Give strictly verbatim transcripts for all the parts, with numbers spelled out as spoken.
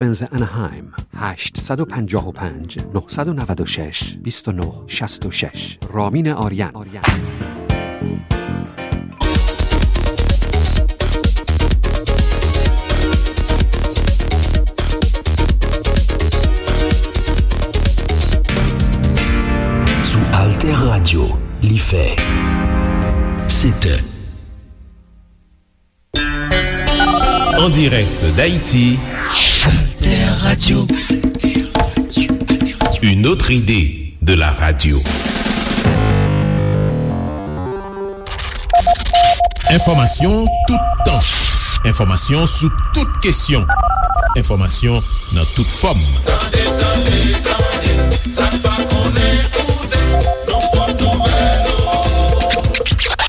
Penzance Anaheim, هشت صد و پنجاه و پنج، نهصد و نود و شش، بیست و نه شصت و شش. رامین آریان. Sou Alter Radio, li fè sèt è. En direct d'Haïti, Alter Radio. Une autre idée de la radio. Enfòmasyon tout tan. Enfòmasyon sou tout kesyon. Enfòmasyon nan tout fòm. Tande, tande, tande, sa n pa konnen koute, nou pot nouvèl ou.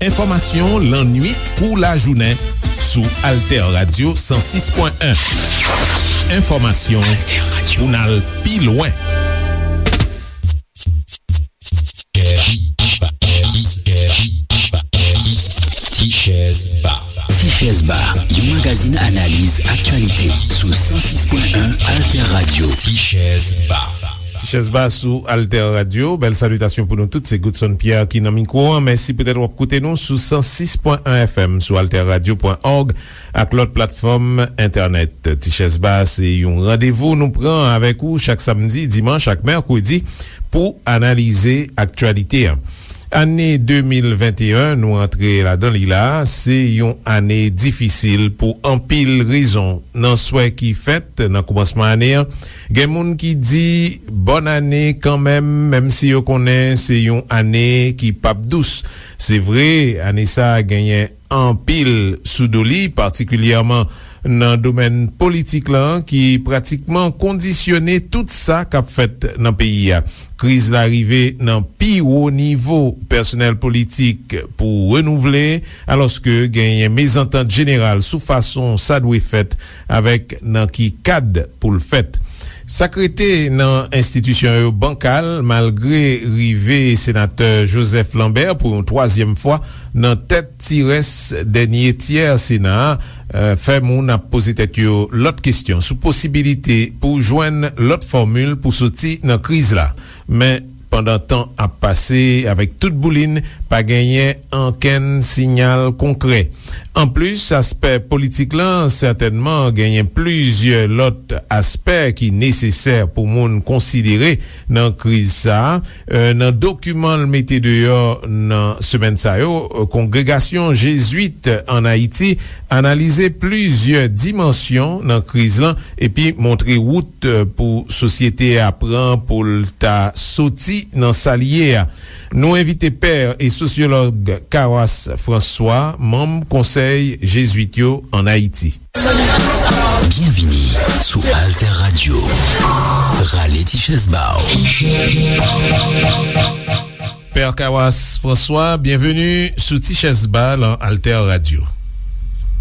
Enfòmasyon lannwit kou lajounen sou Alter Radio san sis pwen en. Enfòmasyon pou n al pi lwen. Ti Chèz Ba. Ti Chèz Ba, yon magazin analiz aktyalite sou san sis pwen en Alter Radio. Ti Chèz Ba. Ti Chèz Ba sou Alter Radio. Bèl salitasyon pou nou tout. Se Godson Pierre ki nan mikwo an. Mèsi poutèt w ap koute nou sou san sis pwen en F M, sou alter radio pwen org ak lòt platfòm entènèt. Ti Chèz Ba se yon randevou nou pran avèk ou chak samdi, dimanch ak mèkredi pou analize aktyalite an. Ane de mil venteyen nou antre ladan li la, se yon ane difisil pou anpil rezon. Nan swè ki fèt nan koumansman ane an, gen moun ki di bòn ane kanmenm, menm si yo konnen se yon ane ki p ap dous. Se vre, ane sa a genyen anpil sou do li, patikilyèman nan domèn politik lan, ki pratikman kondisyone tout sa k ap fèt nan peyi a. Kriz la rive nan pi wo nivo pèsonèl politik pou renouvle, alòske genyen mezantant jeneral sou fason sa dwe fèt avèk nan ki kad pou l fèt. Sa k rete nan enstitisyon yo bankal, malgre rive senatè Joseph Lambert pou yon twazyèm fwa nan tèt ti rès dènye tyè Sena a, eh, fè moun ap poze tèt yo lòt kesyon sou posibilite pou jwenn lòt fòmil pou soti nan kriz la. Men, pandan tan ap pase, avèk tout boulin, pa genyen ankenn siyal konkrè. Anplis, aspè politik lan, sètènman, genyen plizyè lòt aspè ki nesesè pou moun konsidere nan kriz sa a. Eh, nan dokiman l mete deyò nan semèn sa yo, eh, Kongregasyon Jezwit ann Ayiti analize plizyè dimansyon nan kriz lan epi montre wout, eh, pou sosyete a pran pou l ta soti nan sa l ye a. Nou envite pè e sosyològ Kawas François, manm Konsèy Jezwit yo ann Ayiti. Byenvini sou Alter Radio. Rale ti chèz ba w. Pè Kawas François, byenveni sou Ti Chèz Ba lan Alter Radio.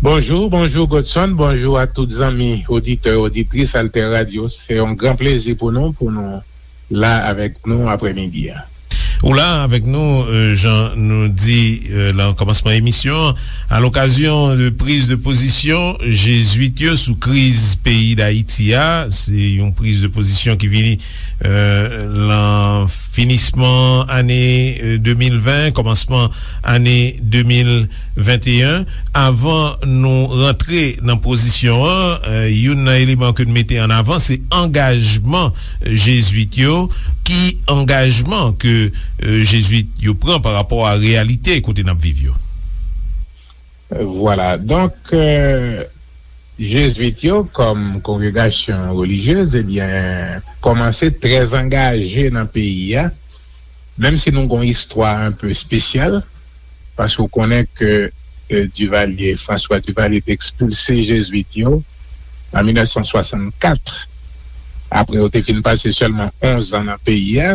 Bonjou, bonjou Godson, bonjou a tout zanmi oditè, oditris Alter Radio. Se yon gran plezi pou nou, pou nou la avèk nou aprèmidi a. Ou la avèk nou, euh, jan nou di, euh, lan kòmansman emisyon an, a lokazyon de priz de pozisyon Jezwit yo sou kriz peyi Dayiti a. Se yon priz de pozisyon ki vini, euh, lan finisman ane, euh, de mil ven, kòmansman ane de mil venteyen. Avan nou rantre nan pozisyon an, euh, youn nan eleman ke n mete an avan, se angajman Jezwit yo. Ki angajman ke, euh, Jezwit yo pran pa rapò a reyalite kote n ap viv yo? Vwala. Donk, euh, Jezwit yo, kòm kongregasyon relijyez, ebyen, kòmanse trè angaje nan peyi a, menm si nou gon istwa enpe espesyal, paske w konnen ke, euh, Duvalier, François Duvalier te ekspilse Jezwit yo an mil nèf san swasannkat. Apre yo te fin pase sèlman onz an nan peyi a,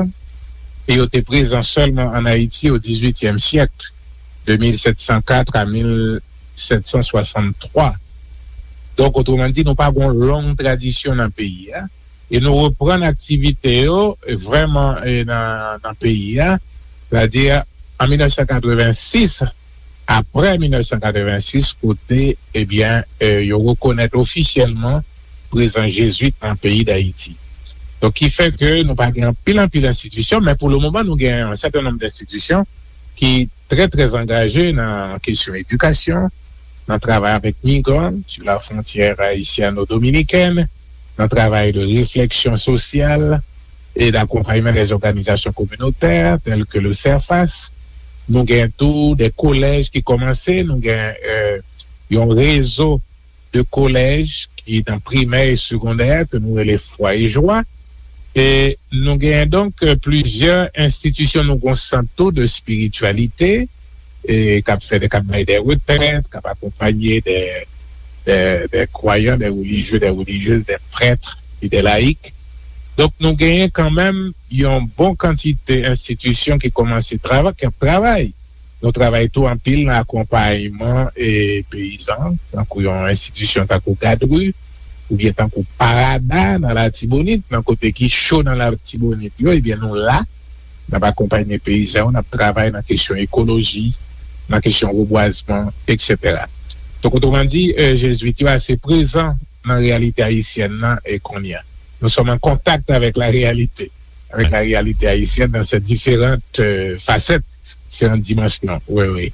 e yo te prezan sèlman ann Ayiti o dizuityèm syèk, de mil sèt san kat a mil sèt san swasanntwa. Donk, otreman di, nou pa gon long tradisyon nan peyi a. E nou reprann aktivite yo, e vrèman, e nan, nan peyi a, sètadi an mil nèf san katrevensis, apre mil nèf san katrevensis, kote, ebyen, e, yo rekonèt ofisyèlman prezans jezwit nan peyi Dayiti. Donk, ki fè ke nou pa gen anpil, anpil enstitisyon, men pou le moman, nou gen yon sèten nonb enstitisyon ki trè, trè angaje nan kesyon edikasyon, nan travay avèk migran sou la frontyè ayisyano-dominikèn, nan travay de refleksyon sosyal e d'akonpayman dè òganizasyon kominotè, tèl ke le CERFAS. Nou gen tou de kolèj ki kòmanse, nou gen, euh, yon rezo de kolèj ki nan primè e segondè ke nou rele Fwa e Jwa. E nou genyen donk, euh, plizyè enstitisyon, nou gon sant tou de espirityalite, e k ap fè de, k ap bay de retrèt, k ap akonpanye de, de, de kwayan, de relijye, de relijyez, de prèt e de layik. Donk, nou genyen kanmenm yon bon kantite enstitisyon ki kòmanse travay, k ap travay. Nou travay tou anpil nan akonpayman e peyizan, tankou yon enstitisyon tankou Gadri, oubyen tankou Parada nan Latibonit, nan kote ki cho nan Latibonit yo, ebyen nou la, n ap akonpanye peyizan yo, n ap travay nan kesyon ekoloji, nan kesyon rebwazman, etsetera. Donk, otreman di, euh, jezwit yo ase prezan nan reyalite ayisyèn nan e kounye a. Nous sommes en contact avec la réalité, avec la réalité haïtienne dans ses différentes, euh, facettes, différentes dimensions. Oui, oui.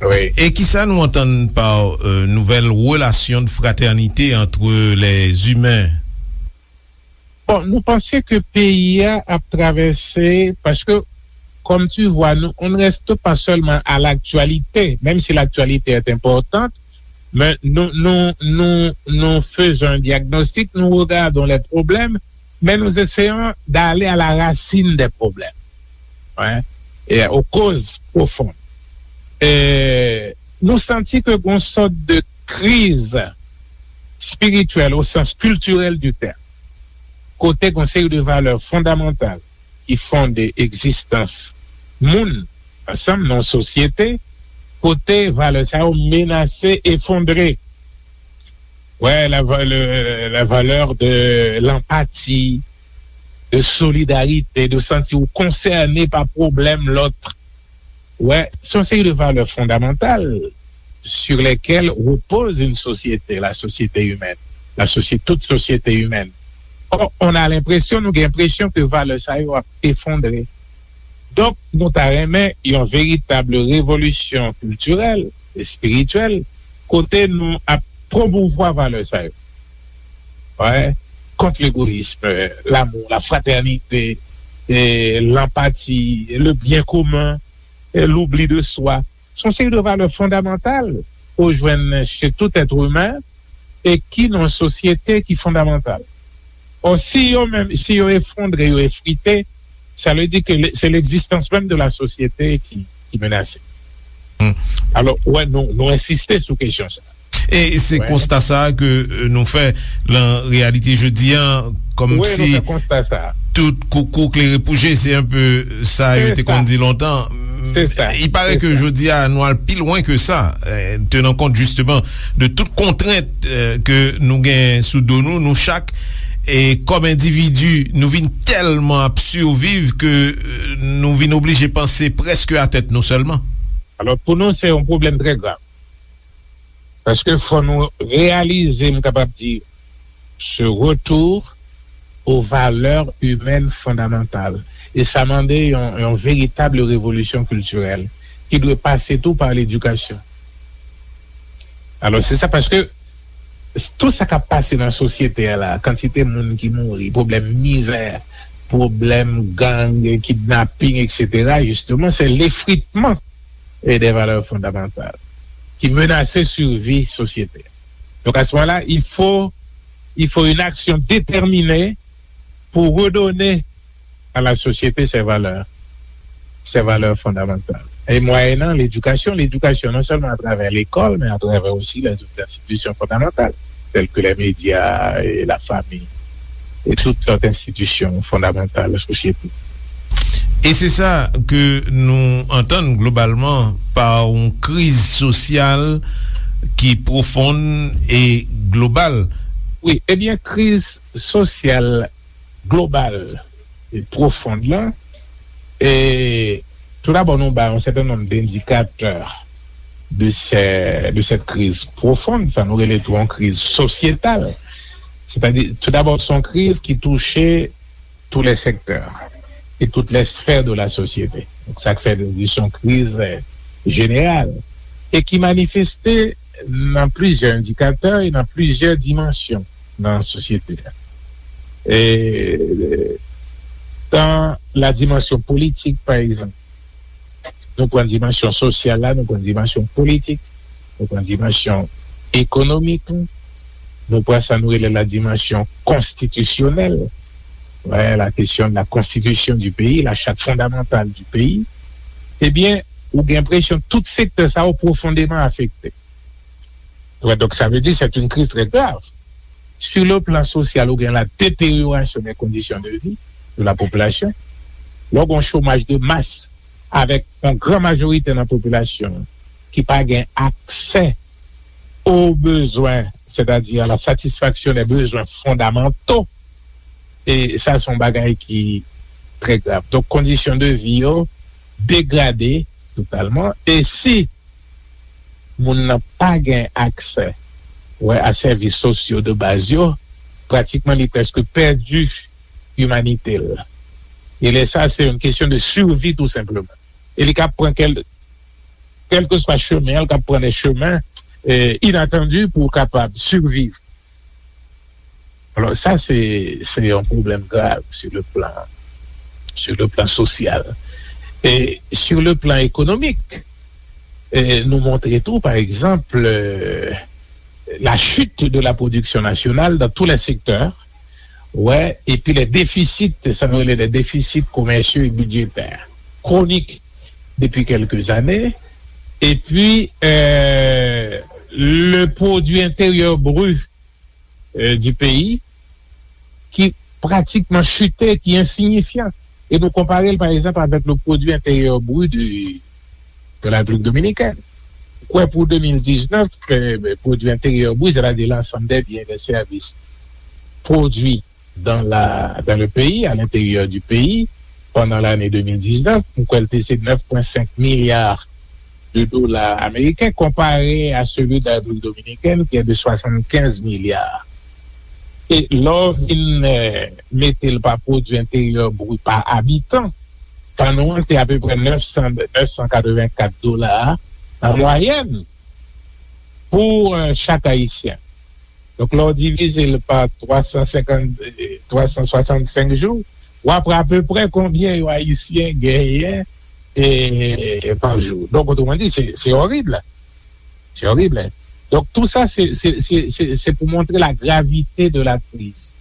Oui. E kisa nou antann pa, euh, nouvelle relation de fraternité entre les humains? Bon, nou panse ke peyi a ap travèse, paske, comme tu vois, nous, on ne reste pas seulement à l'actualité, même si l'actualité est importante, mais nous, nous, nous, nous faisons un diagnostic, nous regardons les problèmes, mais nous essayons d'aller à la racine des problèmes, hein, et aux causes profondes. E nou santi ke gon sòt de kriz espirityèl o sans kiltirèl di tèm, kote gon seri de valè fondamantal ki fonde egzistans moun ansanm nan yon sosyete, kote valè sa yo menase efondre. Ouais, la va-, le, la valeur de l'empathie, de solidarité, de sentir ou concerné par problème l'autre. Ouais, c'est une série de valeurs fondamentales sur lesquelles repose une société, la société humaine, la société, toute société humaine. Or, on a l'impression, nou gen enpresyon ke valè sa yo ap efondre. Donk, nou ta renmen yon veritab revolisyon kiltirèl, espirityèl, kote nou ap pwomouvwa valè sa yo. Ouais. Contre l'égoïsme, l'amour, la fraternité, et l'empathie, le bien commun, et l'oubli de soi. Se yon seri de valè fondamantal ou jwenn chez tout être humain e ki nan yon sosyete ki fondamantal. Or, si yo menm, si yo efondre, yo efrite, sa vle di ke le, se legzistans menm de la sosyete ki, ki menase. Hmm. Alò, wè, nou, nou ensiste sou kesyon sa. E se konsta sa a ke, euh, nou fè lan reyalite jodi a, kòmsi tout koukou klere pou je, se enpe sa yo te konn di lontan. Se sa. Il paraît que jodi a, nou al pi lwen ke sa, euh, tenan kont jisteman de tout kontrent, euh, ke nou gen sou do nou, nou chak, e kòm endividi, nou vin tèlman ap siviv ke, euh, nou vin oblije panse prèske a tèt nou sèlman. Alò, pou nou, se yon pwoblèm trè grav. Paske fò nou reyalize, m kapab di, ce retour aux valeurs humaines fondamentales. E sa mande yon, yon veritab revolisyon kiltirèl ki dwe pase tou pa ledikasyon. Alò, se sa, paske tout sa k ap pase nan sosyete a la, kantite moun ki mouri, pwoblèm mizè, pwoblèm gang, kidnaping, etsetera, jisteman, se lefritman e de valè fondamantal ki menase sivi sosyete. Donk, à ce moment-là, il faut, il faut une action déterminée pour redonner à la société ses valeurs, ses valeurs fondamentales. E mwayenan ledikasyon, ledikasyon non sèlman atravè lekòl, men atravè osi lèzòt enstitisyon fondamantal, tèl ke lè medya, e lafami, e tout lòt enstitisyon fondamantal sosyete. E se sa ke nou antann globalman pa yon kriz sosyal ki pwofonn e global. Wi, ebyen, kriz sosyal global e pwofonn lan, e toudabò, nou bay yon sèten nonb dendikatè de sè-, de sèt kriz pwofonn, sa nou rele tou yon kriz sosyetal. Sètadi, toudabò, se yon kriz ki touche tous les secteurs et toutes les sphères de la société. Donk, sa k fè nou di se yon kriz, euh, jeneral e ki manifeste nan plizyè endikatè e nan plizyè dimansyon nan sosyete a. E, dans la dimension politique, par exemple, nou pran dimansyon sosyal la, nou pran dimansyon politik, nou pran dimansyon ekonomik, nou pran sa nou rele la dimansyon konstitisyonèl, ouais, la question de la constitution du pays, la charte fondamentale du pays, ebyen, ou gen enpresyon tout sektè sa yo pwofondeman afekte. Ouais, donc ça veut dire c'est une crise très grave. Sur le plan social, ou gen la détérioration des conditions de vie de la population. Lè w gen yon chomaj de mas avèk yon gran majorite nan popilasyon ki pa gen aksè aux besoins, c'est-à-dire à la satisfaction des besoins fondamentaux, e sa se yon bagay ki trè grav. Donk, kondisyon de vi yo degrade totalman. E si moun nan pa gen aksè, wè, a sèvis sosyo de baz yo, pratikman li prèske pèdi imanite l. E lè sa, se yon kesyon de survie tou senpleman. E li ka pran kèl, kèlkeswa chemen, li ka pran de chemen, euh, inatandi pou kapab siviv. Alors, ça, c'est, c'est un problème grave sur le plan, sur le plan social. Et sur le plan économique, eh, nou montre tou, par exemple, euh, la chute de la production nationale dans tous les secteurs, ouais, et puis les déficits, ça nous les déficits commerciaux et budgétaires chroniques depuis quelques années, et puis euh, le produit intérieur brut euh, du pays ki pratikman chite, ki ensinyifyan. E nou konpare l, pa egzanp, avèk le produit intérieur brut de, de la République dominicaine. Ou kwè pou de mil diznèf, euh, produit intérieur brut, c'est-à-dire l'ensemble des biens et des services produits dans la, dans le pays, à l'intérieur du pays, pendant l'année deux mille dix-neuf, m kwè l te se neuf point cinq milliards de dola ameriken, konpare a seli de la Repiblik Dominikèn, ki est de soixante-quinze milliards. E lè w vin, euh, mete l pa pwodui enteryè bri pa abitan, pa nou an te apeprè neuf cents, neuf cent quatre-vingt-quatre dola an mwayèn pou, euh, chak Ayisyen. Donk, lè w divize l pa twa san senkant, twa san swasannsenk jou, w ap wè apeprè konbyen yon Ayisyen genyen, e, pa jou. Donk, otreman di, se, se orib. Se orib. Donk, tou sa, se, se, se, se, se pou montre la gravite de la kriz.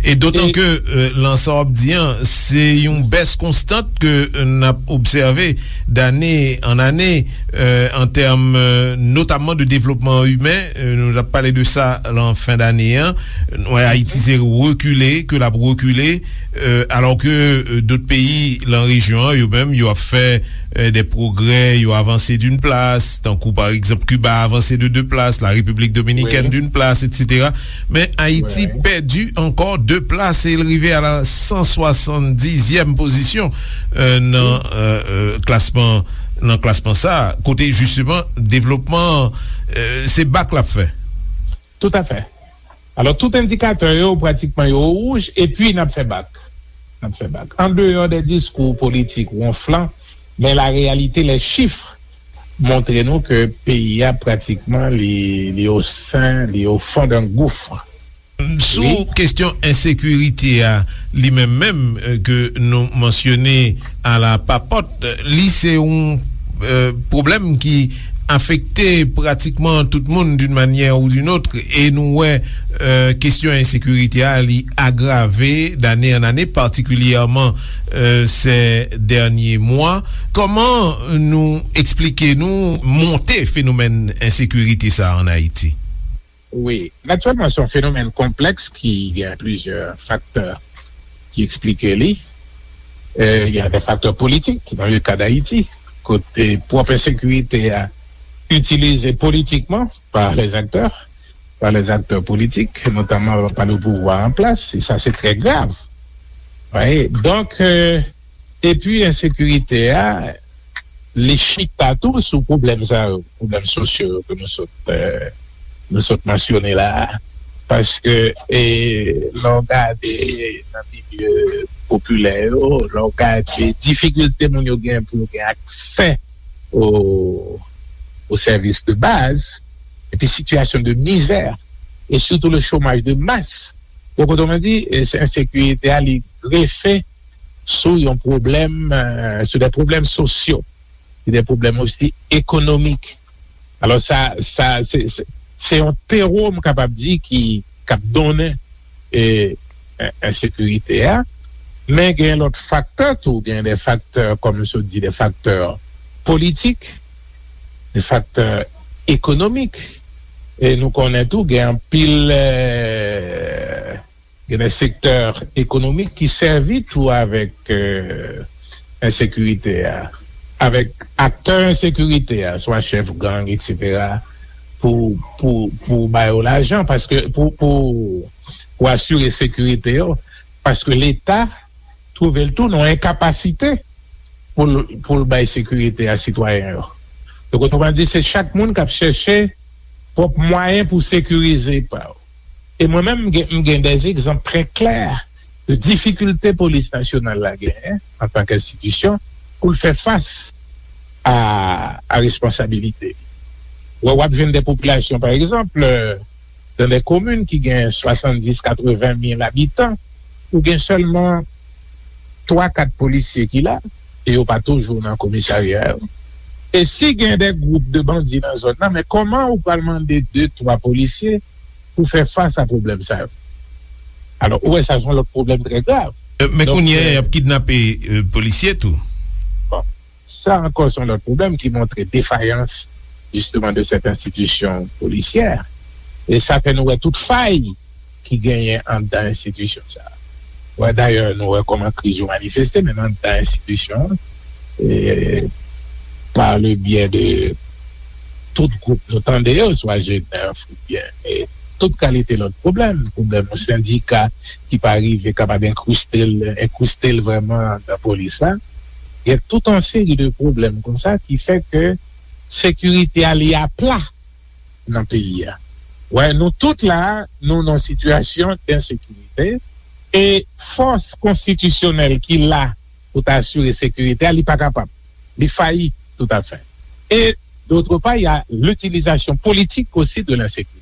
E dotan ke, euh, lan sa w ap di an, se yon bès konstant ke, euh, n ap obsève dane an ane, euh, an tèm, euh, notamman de devlopman imen, euh, nou t ap pale de sa lan fen dane an. Nou wè Ayiti se rekile, ke l ap rekile, euh, alò ke, euh, dòt peyi lan rejyon an, yo menm, yo ap fè, euh, de pwogrè, yo avanse d'une place, tankou pa egzanp Kiba avanse de deux places, la République dominicaine d'une place, et cetera. Men Ayiti pèdi ankò de plas e l rive a la san swasanndizyèm pozisyon, euh, nan, euh, euh, klasman, nan klasman sa, kote jisteman devlopman, euh, se bak l ap fè. Toutafè. Alò, tout endikatè yo, pratikman, yo wouj, epi n ap fè bak. N ap fè bak. An deyò de diskou politik wonflan, men la réalité, les chiffres montre nou ke peyi a, pratikman, li, li o sen, li o fon d'un gouffre. Sou kesyon ensekirite a, li menm menm, euh, ke nou mansyone a la papòt, li se yon, euh, pwoblèm ki afekte pratikman tout moun d'une manière ou d'une autre, e nou wè, euh, kesyon ensekirite a, li agrave d'année en année, particulièrement, euh, ces derniers mois. Kòman nou eksplike nou monte fenomèn ensekirite sa an Ayiti? Wi, natirèlman, se yon fenomèn konplèks ki gen plizyè faktè ki eksplike li. Euh, il y a des facteurs politiques dans le cas d'Haïti, kote pwòp ensekirite a itilize politikman par les acteurs, par les acteurs politiques, notamment par le pouvoir en place, et ça c'est très grave. Wi, donk, euh, epi ensekirite a, li chita tou sou pwoblèm sa yo, pwoblèm sosyo yo ke nou sot, euh, nou sot mansyone la a. Paske, e, lè w gade nan milye popilè yo, lè w gade difikilte moun yo gen pou yo gen aksè o, o sèvis de baz, epi sitiyasyon de mizè, e sitou le chômage de masse. Donk, otoman di, e, se ensekirite a, li grefe sou yon pwoblèm, e, sou de pwoblèm sosyo, e de pwoblèm osi ekonomik. Alò, sa, sa, se, se, se yon tewo, m kapab di, ki, k ap donnen, e, en-, ensekirite a. Men gen lòt faktè tou, gen de faktè, kòm m sot di, de faktè politik, de faktè ekonomik. E nou konnen tou, gen anpil, e, gen de sektè ekonomik ki sèvi tou avèk, e, ensekirite a, avèk aktè ensekirite a, swa chèf gang, etsetera, pou, pou, pou ba yo lajan, paske pou, pou, pou asire sekirite yo, paske Leta twouve l tou nan enkapasite pou l, pou l bay sekirite a sitwayen yo. Donk, otoman di, se chak moun k ap chèche pwòp mwayen pou sekirize pa yo. E mwen menm, m gen, m gen de egzanp trè klè de difikilte polis nasyonal la genyen antanke enstitisyon pou l fè fas a, a responsabilite li. Wè, w ap jwenn de popilasyon, pa egzanp, dan de komin ki gen swasanndis, katreven mil abitan, ou gen sèlman twa, kat polisye ki la, e yo pa toujou nan komisarya yo. E si gen de gwoup de bandi nan zòn nan, men kòman ou pral mande de, twa polisye pou fè fas a pwoblèm sa yo? Alò, ou wè, sa se yon lòt pwoblèm trè grav. E, men kounye a, y ap kidnape, e, polisye tou. Bon, sa ankò se yon lòt pwoblèm ki montre defayans, jisteman, de sèt enstitisyon polisyè. E sa fè nou wè tout fay ki genyen anndan enstitisyon sa a. Wè, dayè, nou wè kòman kriz yo manifeste, menm anndan enstitisyon an, e, pa le byè de tout gwoup nou tande yo, swa G nèf oubyen, e, tout kalite lòt pwoblèm, pwoblèm yon sendika ki pa rive kapab enkriste l, enkriste l vrèman anndan polis la. Gen tout yon seri de pwoblèm konsa ki fè ke sekirite a li apla nan peyi a. Wè, nou tout la, nou nan sitiyasyon densekirite, e fòs konstitisyonèl ki la pou ta asire sekirite a, li pa kapab. Li fayi toutafè. E, d'autre part, il y a l'utilisation politique aussi de l'insécurité.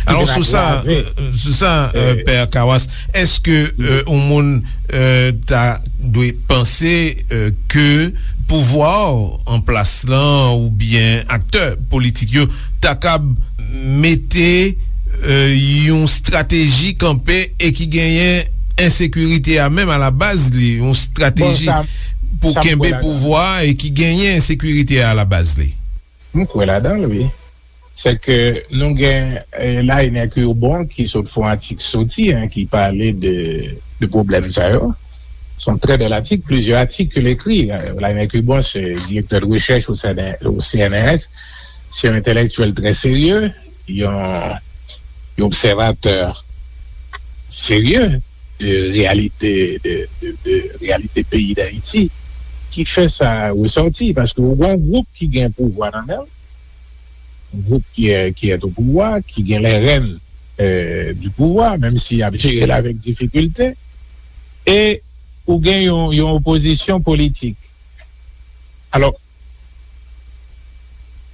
Alò, sou sa, sou sa, e, Pè Kawas, èske, e, yon moun, e, ta dwe panse, e, ke pouvwa an plas lan oubyen aktè politik yo ta kab mete, e, yon estrateji kanpe e ki genyen ensekirite a menm alabaz li, yon estrateji pou kenbe pouvwa e ki genyen ensekirite a alabaz li? M kwè ladan l, wi. Se ke nou gen, e, Lainer Curbon ki sot fè yon atik soti, en, ki pale de, de pwoblèm sa yo. Se yon trè bèl atik, plizyè atik ke l ekri. Lainer Curbon se direktè de rechèch o C N R, o C N R S. Se yon entèlektyèl trè serye, yon, yon obsèvatè serye de reyalite, de, de, de reyalite peyi Dayiti ki fè sa resòti, paske ou gen yon gwoup ki gen pouvwa nan men l, yon gwoup ki, ki est au pouvoir, ki gen les rênes, euh, du pouvoir, menm si y ap jere l avèk difikilte, e ou gen yon, yon opozisyon politik. Alò,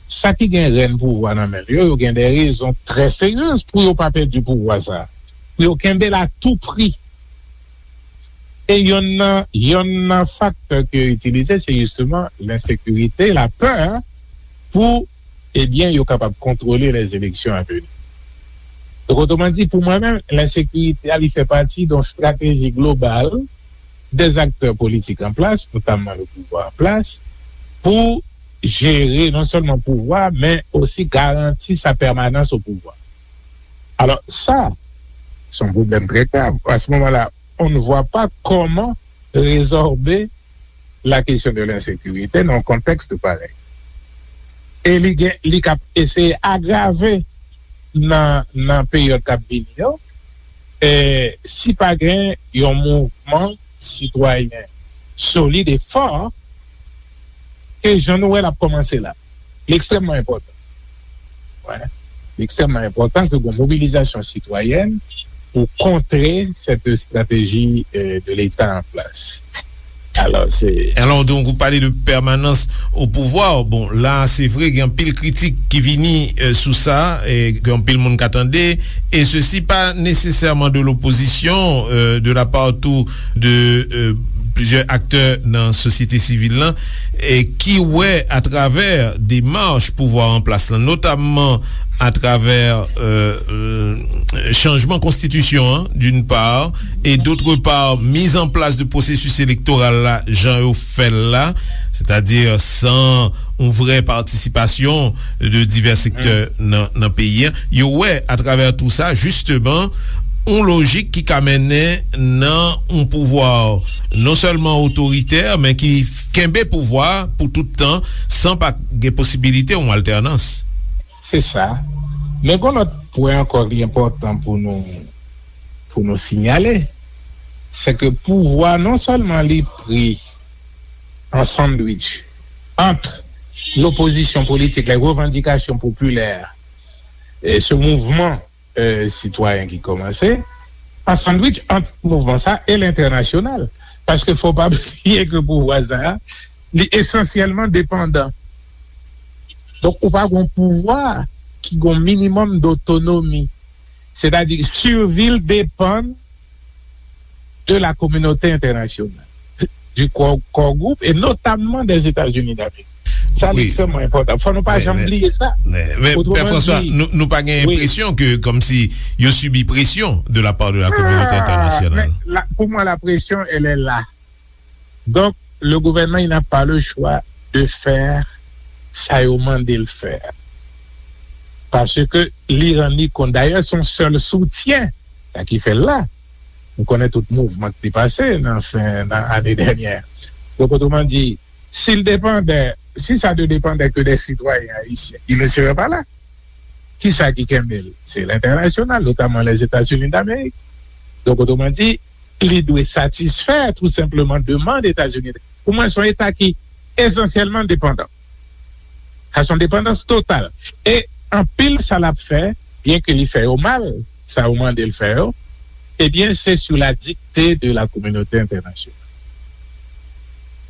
sa ki gen rèn pouvwa nan men l yo, yo gen de rezon trè serye pou yo pa pèdi pouvwa sa a, pou yo kenbe l a tou pri. E yonn nan, yonn nan faktè ke yo itilize, se jisteman lensekirite, lapè, pou, ebyen, yo kapab kontwole lèzeleksyon a veni. Donk, otoman di, pou mwen menm, lensekirite a, li fè pati de yon estrateji global des acteurs politiques en place, notamment le pouvoir en place, pou jere non sèlman pouvwa, men osi garanti sa pèmanans o pouvwa. Alò, sa, se yon pwoblèm trè grav. À ce moment-là, on ne voit pas comment résorber la question de l'insécurité dans un contexte pareil. E li gen, li k ap eseye agrave nan, nan peryòd k ap vini yo, e si pa gen yon mouvman sitwayen solid e fò, ke jan nou wè l ap kòmanse la. Li ekstrèmman enpòtan. Wè. Li ekstrèmman enpòtan ke gen yon mobilizasyon sitwayèn pou kontre cette stratégie, euh, de l'État en place. Alò, se... Alò, donk, ou pale de pèmanans o pouvwa. Bon, la, se vre, gen anpil kritik ki vini, euh, sou sa, e gen anpil moun ka tande, et ceci pas nécessairement de l'opposition, euh, de la part tou de, euh, plizyè aktè nan sosyete sivil lan, e ki wè atravè demach pouvwa an plas lan, notamman atravè, euh, euh, chanjman konstitisyon an, d'une part, et d'autre part, mise en place de processus électoral la, jan yo fè l la, c'est-à-dire sans yon vrè patisipasyon de divè sektè nan, nan peyi an. Yo wè atravè tou sa, jisteman, yon lojik ki ka mennen nan yon pouvwa non sèlman otoritè, men ki kenbe pouvwa pou tout tan, san pa gen posibilite yon altènans. Se sa. Men gen lòt pwen ankò ki enpòtan pou nou, pou nou sinyale, se ke pouvwa non sèlman li pri an sandwich ant lopozisyon politik, les revendications populaires, e se mouvman, euh, sitwayen ki kòmanse, an sandwich ant mouvman sa e lentènasyonal. Paske fò pa bliye ke pouvwa sa a, li esansyèlman depandan. Donk, ou pa gen yon pouvwa ki gen yon minimòm dotonomi. Sètadi, sirvi l depann de la communauté internationale, du core, core group, et notamment des États-Unis d'Amérique. Sa li ekstrèmman enpòtan. Fò nou pa janm bliye sa. Men, men, Pè Franswa, nou, nou pa gen enpresyon ke, kòmsi, yo sibi presyon de la part de la communauté internationale. Pou mwen, la pression, elle est là. Donc, le gouvernement, il n'a pas le choix de faire sa yo mande l fè. Paske li rann li kont, dayè, se yon sèl soutyen, sa ki fè l la. Nou konnen tout mouvman ki te pase nan fen, nan ane dènyè. Donk, otreman di, si l depandè, si sa te depandè ke de sitwayen ayisyen, il ne serait pas là. Kisa ki kenbe l? Se lentènasyonal, notamman Lèzetazini d'Amerik. Donk, otreman di, li dwe satisfè tou senpleman demann Etazini. Pou mwen, se yon Eta ki esansyèlman depandan. Sa se yon depandans total. E anpil sa l ap fè, byen ke li fè yo mal, sa yo mande l fè yo, ebyen, se sou la dikte de la kominote entènasyonal.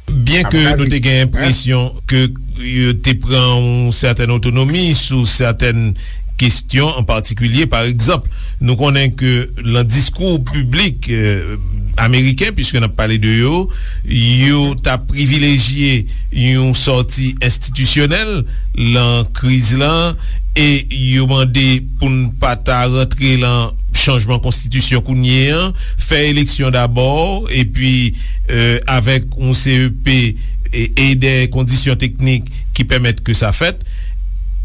Byen ke nou te gen enpresyon ke yo te pran yon sètèn otonomi sou sètèn kesyon an patikilye. Pa egzanp, nou konnen ke nan diskou piblik, eh, ameriken, piske n ap pale de yo, yo ta privilejye yon sòti enstitisyonèl nan kriz lan, e yo mande pou n pa ta rantre nan chanjman konstitisyon kounye an, fè eleksyon dabò, epi, eh, avèk yon C E P e, e de kondisyon teknik ki pèmèt ke sa fèt.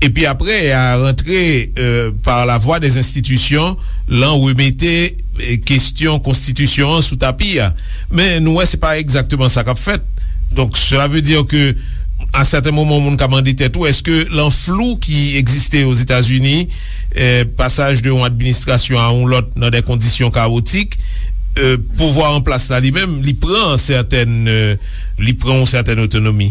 Epi apre, a rantre, eh, par la voie des institutions, lan remete, eh, kesyon konstitisyon an sou tapi a. Men nou wè se pa egzakteman sa k ap fèt. Donk, cela veut dire que, à certains moments, moun ka mande tèt ou, èske lan flou ki egziste Ozetazini, eh, pasaj de yon administrasyon a yon lòt nan de kondisyon kawotik, eh, pouvwa an plas la li menm, li pran sètèn, eh, li pran yon sètèn otonomi?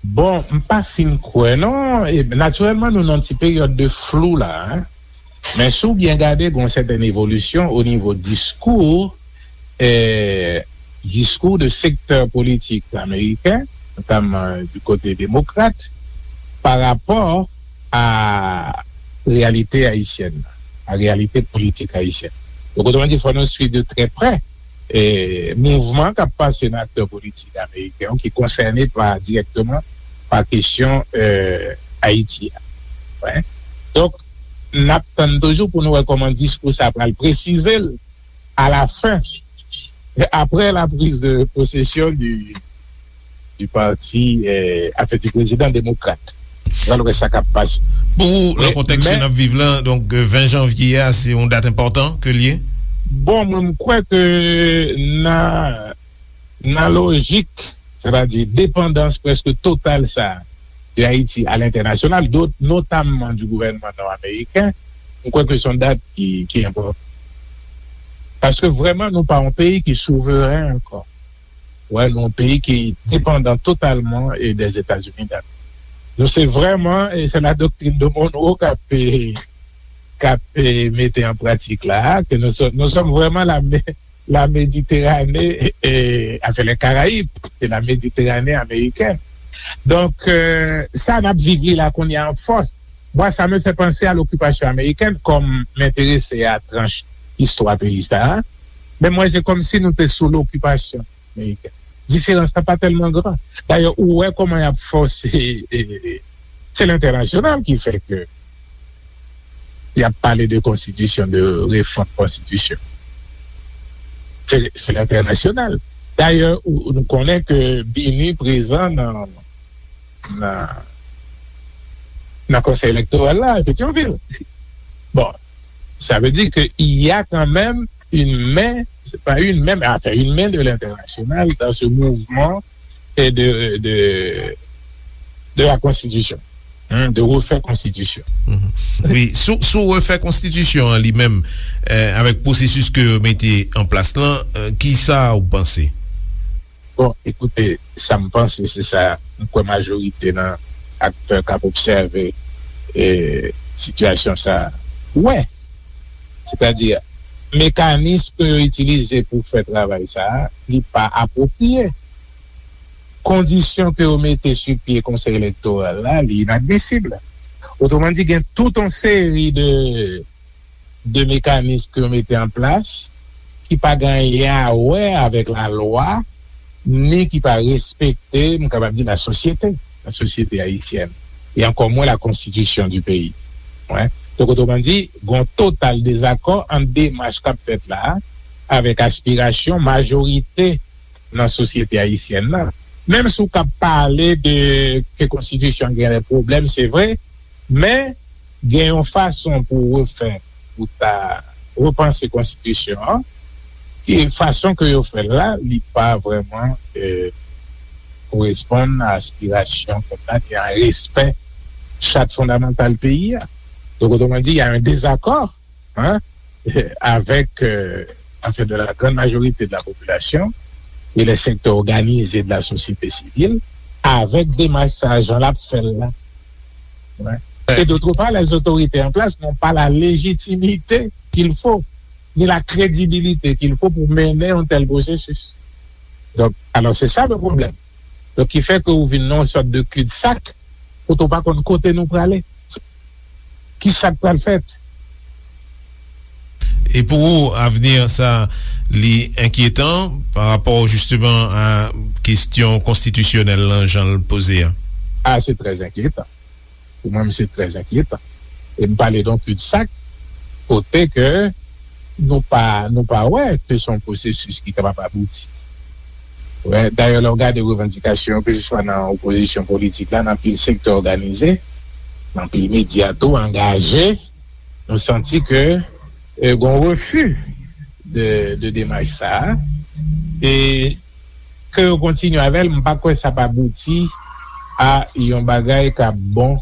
Bon, m pa fin kwè non. E, natirèlman, nou nan ti peryòd de flou la, hein. Men si w byen gade, gen yon sètèn evolisyon o nivo diskou, eh, diskou de sektè politik ameriken, notamman du kote demokrat, pa rapò a reyalite ayisyèn, a reyalite politik ayisyèn. Donk, otreman di, fò nou swiv de trè prè, eh, mouvman k ap pase nan aktè politik ameriken yo ki konsène pa, dirèkteman pa kesyon, eh, Ayiti a. Wi. Donk, n ap tann toujou pou nou wè kòman diskou sa pral presize l a la fen, apre la prise de possession du, du parti, eh, anfen, du prezidan demokrat. Pral wè sa k ap pase. Pou ou, nan kontèks ke n ap viv lan, donk, eh, ven janvye a, se yon dat enpòtan ke l ye? Bon, mwen, m kwè ke nan, nan lojik, sètadi depandans prèske total sa de Ayiti a lentènasyonal, do-, notamman du gouvènman nò-ameriken, m kwè ke se yon dat ki, ki enpòtan. Paske vrèman, nou pa yon peyi ki souveren ankò. Wè, nou yon peyi ki depandan totalman, eh, des États-Unis d'Amérique. Nou se vrèman, e se la doktrin de Monroe k ap, e, k ap, e, mete an pratik la, ke nous sommes, nous sommes vraiment la, la Méditerranée, e, enfin, les Caraïbes, c'est la Méditerranée américaine. Donk, e, sa n ap viv li la kounye a an fòs. Moi, ça me fait penser à l'occupation américaine, comme m enterese a tranch istwa peyi sa a. Men mwen, se kòmsi nou te sou lokipasyon amerikèn. Diferans lan pa tèlman gran. Dayè, ou wè kòman y ap fòse, e, e, se lentènasyonal ki fè ke y ap pale de konstitisyon, de refòm konstitisyon. Se, se lentènasyonal. Dayè, ou, nou konnen ke BINUH prezan nan, nan, nan Konsèy Elektoral la, Petyonvil. Bon, ça veut dire qu'il y a quand même une main, c'est pas une main, mais enfin une main de l'international dans ce mouvement et de, de, de la constitution, hein, de refaire constitution. Wi, sou, sou refè konstitisyon an li menm, e, avèk pwosesis ke yo mete an plas lan, e, kisa ou panse? Bon, ekoute, sa m panse, se sa m kwè majorite nan aktè k ap obsève, e, sitiyasyon sa a wè. Sètadi, mekanis ke yo itilize pou fè travay sa a, li pa apwopriye. Kondisyon ke yo mete sou pye Konsèy Elektoral la, li inadmisib. Otreman di, gen tout yon seri de de mekanis ke yo mete an plas ki pa gen anyen a wè avèk lalwa, ni ki pa respekte, m kapab di, lasosyete, lasosyete ayisyèn, e ankò mwen la konstitisyon di peyi. Wi. Donk, otreman di, gen yon total dezakò ant demach k ap fèt la a avèk aspirasyon majorite nan sosyete ayisyèn nan. Menm si w ka pale de ke konstitisyon an gen de pwoblèm, se vre, men gen yon fason pou refè, pou ta repanse konstitisyon an, ki fason ke yo fè l la, li pa vrèman, e, koresponn a aspirasyon pèp la, ni a respè chat fondamantal peyi a. Donk, otreman di, y a un désaccord, hein, avec, euh, enfin, de la grande majorité de la population et les secteurs organisés de la société civile, avec demach sa a, jan l ap fè l la. Wi. Et d'autre part, les autorités en place n'ont pas la légitimité qu'il faut, ni la crédibilité qu'il faut pour mener un tel processus. Donk, alò, se sa le pwoblèm. Donk, ki fè ke ou vin nan yon sòt de cul-de-sac, kote ou pa konn kote nou prale. Kisa k pral fèt? E pou ou, avni sa, li enkyetan pa rapò jisteman a kesyon konstitisyonèl lan, jan l poze a? A, se trè enkyetan. Pou mwen, se trè enkyetan. E m pale de yon cul-de-sac, kote ke nou pa, nou pa wè ke se yon pwosesis ki kapab abouti. Wè, dayè, lè w gade revandikasyon yo, keseswa nan opozisyon politik la, nan anpil sektè òganize, nan anpil medya tou angaje, nou santi ke, e, gen yon refi de, de demach sa a. E ke yo kontinye avè l, m pa kwè sa p abouti a yon bagay k ap bon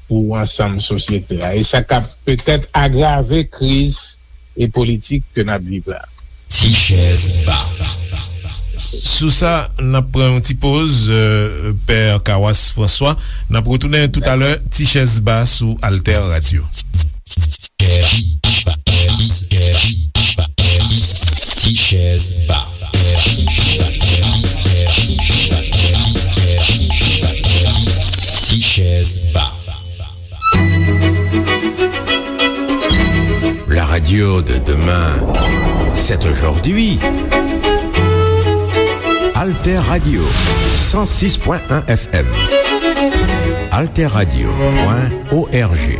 pou ansanm sosyete a. E sa k ap petèt agrave kriz e politik ke n ap viv la. Ti chèz ba. Sou sa, n ap pran yon ti poz, euh, Pè Kawas Franswa. N ap retounen toutalè, Ti chèz ba sou Alter Radio. Ti chèz ba. Ti chèz ba. La radio de demain, c'est aujourd'hui. Alter Radio, cent six point un F M. Alter Radio point O R G.